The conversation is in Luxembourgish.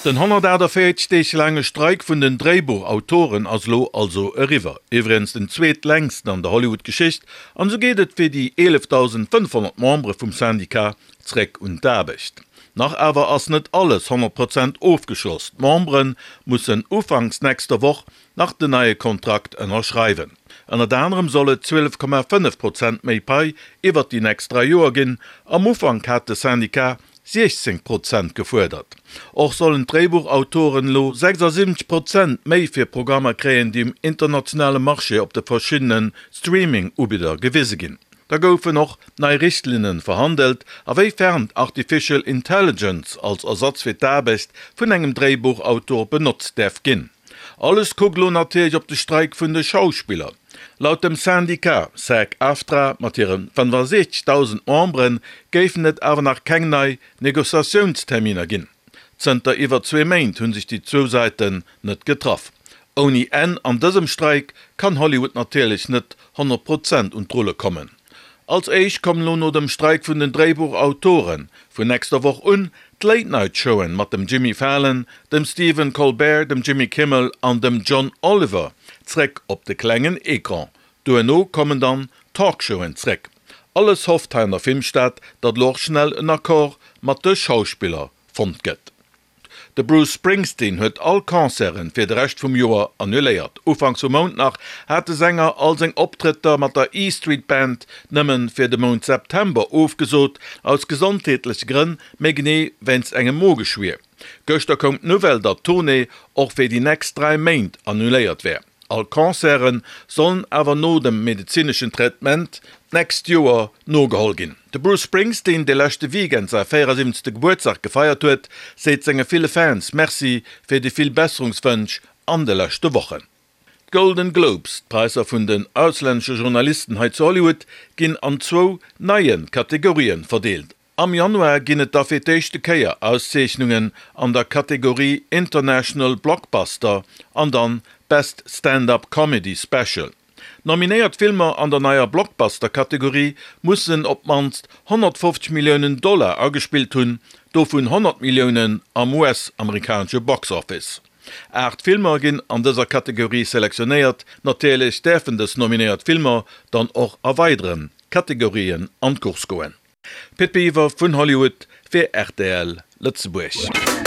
Den 148 Deeg laange Streik vun den Dréibuchautoren ass elo also eriwwer. Iwwregens den zweetlängsten an der Hollywood-Geschicht. An esou geet et fir déi 11.500 Membere vum Syndicat zréck un d'Aarbecht. Nach awer ass net alles 100 Prozent ofgeschloss. D'Membere mussen ufanks nächster Woch nach den neie Kontrakt ënnerschreiwen. Ënnert anerem soll et 12,5 Prozent méi Pai iwwert déi nächst 3 Joer ginn. Am Ufank hat de Syndicat 16 Prozent gefuerdert. Och sollen d'Dréibuchautoren elo 76 Prozent méi fir Programmer kréien, déi um internationale Marché op de verschiddene Streaming-Ubidder gewise ginn. Da goufen och nei Richtlinnen verhandelt, a wéi fern d'Artificial Intelligence als Ersatz fir d'Aarbecht vun engem Dréibuchautor benotzt däerf ginn. Alles kuckt elo natierlech op de Streik vun de Schauspiller. Laut dem Syndicat SAG-AFTRA mat hire 65.000 Membere géifen et awer nach keng nei Negociatiounsterminer ginn. Zënter iwwer zwee Méint hu sech déi zwou Säiten net getraff. Ouni Enn an dësem Streik kann Hollywood natierlech net 100 Prozent un d'Rulle kommen. Als éischt kommen elo no dem Streik vun den Dréibuchautoren vun nächster Woch un d'Late Night Showen mat dem Jimmy Fallon, dem Stephen Colbert, dem Jimmy Kimmel an dem John Oliver zréck op de klengen Ecran. Duerno kommen dann d'Talkshowen zréck. Alles hofft hei an der Filmstad, datt elo och schnell en Accord mat de Schauspiller fonnt gëtt. De Bruce Springsteen huet all Concerten fir de Rescht vum Joer annuléiert. Ufanks vum Mount nach hat de Sänger all seng Optrëtter mat der E Street Band nëmmen fir de Mount September ofgesot, aus gesondheetleche Grënn, méi genee wéinst engem Mogeschwier. Gëschter koum d'Nouvelle, datt d'Tournée och fir déi nächst 3 Méint annuléiert wär. All Concerte sollen awer no dem medezineschen Traitement d'nächst Joer nogeholl ginn. De Bruce Springsteen, dee leschte Weekend säi 74. Gebuertsdag gefeiert huet, seet senge ville Fans Merci fir déi vill Besserungswënsch an de leschte Wochen. D'Golden Globes, d'Präisser vun den auslännesche Journalisten hei zu Hollywood, ginn an zwou neie Kategorien verdeelt. Am Januar ginn et da fir d'éischte Kéier Auszeechnungen an der Kategorie International Blockbuster an dann Best Stand-Up Comedy Special. Nominéiert Filmer an der neier Blockbuster-Kategorie mussen op d'mannst 150 Milliounen Dollar agespillt hunn, dovun 100 Milliounen am US-amerikanesche Box Office. 8 Filmer ginn an dëser Kategorie selektionéiert. Natierlech däerfen dës nominéiert Filmer dann och a weidere Kategorien an d'Course goen. Pit Biwer vun Hollywood fir rtl Lëtzebuerg.